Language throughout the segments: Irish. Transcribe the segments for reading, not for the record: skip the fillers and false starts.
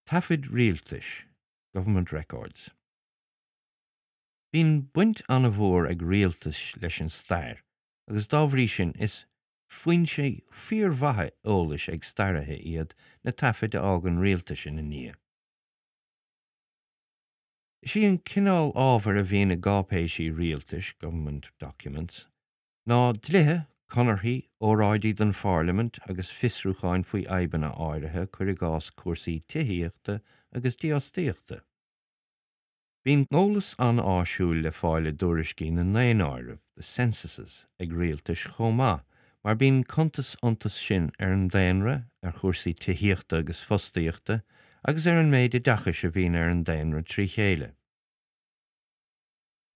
Taifid rialtais, Government records. Bíonn baint an-mhór ag rialtais leis an stair agus dá bhrí sin is foinsé fíormhaith eolais ag staraithe iad na taifid a fhágann rialtais ina ndiaidh. Is í an cineál ábhair a bhíonn i gcáipéisí rialtais, government documents, ná dlíthe, conarthaí, óráidí don phairlimint agus fiosrúcháin faoi fhadhbanna áirithe, cuir i gcás cúrsaí tithíochta agus dífhostaíochta. Bíonn eolas an-áisiúil le fáil i dtuairiscí na ndaonáireamh, the censuses, ag rialtais chomh maith, mar bíonn cuntas iontu sin ar an daonra, ar chúrsaí tithíochta agus fostaíochta, agus ar an méid oideachais a bhíonn ar an daonra trí chéile.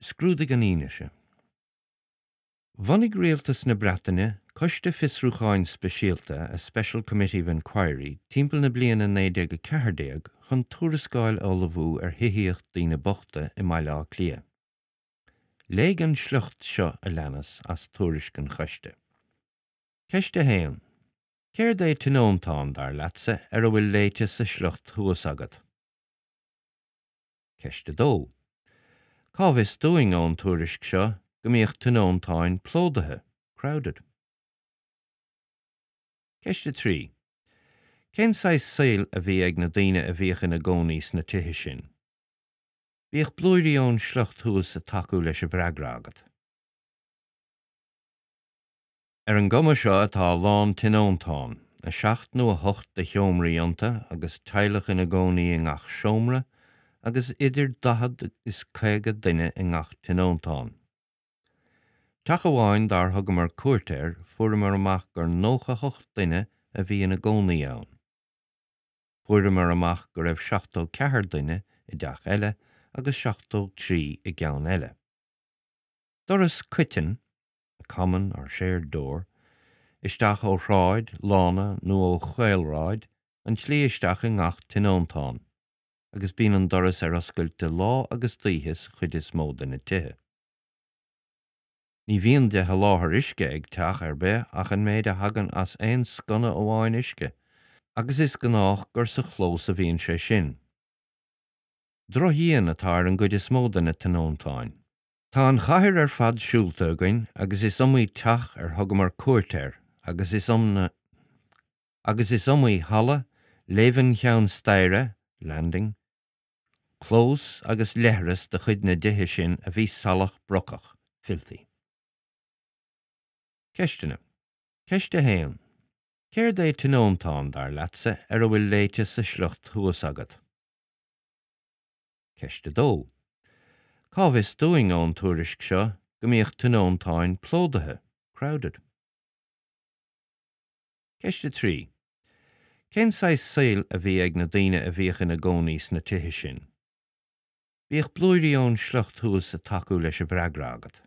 Scrúdaigh an fhianaise. Bhunaigh Rialtas na Breataine Coiste Fiosrúcháin Speisialta, a Special Committee of Inquiry, timpeall na bliana 1914 chun tuarascáil a ullmhú ar thithíocht daoine bochta i mBaile Átha Cliath. Léigh an sliocht seo a leanas as tuairisc an choiste. Ceist 1. Céard é tionóntán, dar leatsa, ar a bhfuil léite sa sliocht thuas agat? Ceist 2. Cá bhfios dúinn ón tuairisc seo go mbíodh tionóntáin plódaithe, crowded? Ceist 3. Cén saghas saoil a bhí ag na daoine a bhíodh ina gcónaí sna tithe sin? Bíodh blúirí ón sliocht thuas ag tacú leis an bhfreagra agat. Ar an gcuma seo atá a lán tionóntán, 7 nó 8 de sheomraí iontu agus teaghlach ina gcónaí i ngach seomra agus idir 40 is 50 duine i ngach tionóntán. Teach amháin dár thugamar cuairt air fuaireamar amach gur 98 duine a bhí ina gcónaí ann. Fuaireamar amach go raibh 74 duine i dteach eile agus 73 i gceann eile. Doras coiteann, a common or shared door, isteach ó shráid, lána nó ó chaolshráid, an tslí isteach i ngach tionóntán, agus bíonn an doras ar oscailt de lá agus d'oíche sa chuid is mó de na tithe. Ní bhíonn de sholáthar uisce ag teach ar bith ach an méid a thagann as aon sconna amháin uisce, agus is gnách gur sa chlós a bhíonn sé sin. Drochdhíon atá ar an gcuid is mó de na tionóntáin. Tá an chathair ar fad siúlta againn agus is iomaí teach ar thugamar cuairt air agus is agus is iomaí halla, léibheann cheann staighre, landing, clós agus leithreas de chuid na dtithe sin a bhí salach brocach, filthy. Ceisteanna. Ceist 1. Céard é tionóntán, dar leatsa, ar a bhfuil léite sa sliocht thuas agat? Ceist 2. Cá bhfios dúinn ón tuairisc seo go mbíodh tionóntáin plódaithe, crowded? Ceist 3. Cén saghas saoil a bhí ag na daoine a bhíodh ina gcónaí sna tithe sin? Bíodh blúirí ón sliocht thuas ag tacú leis an bhfreagra agat.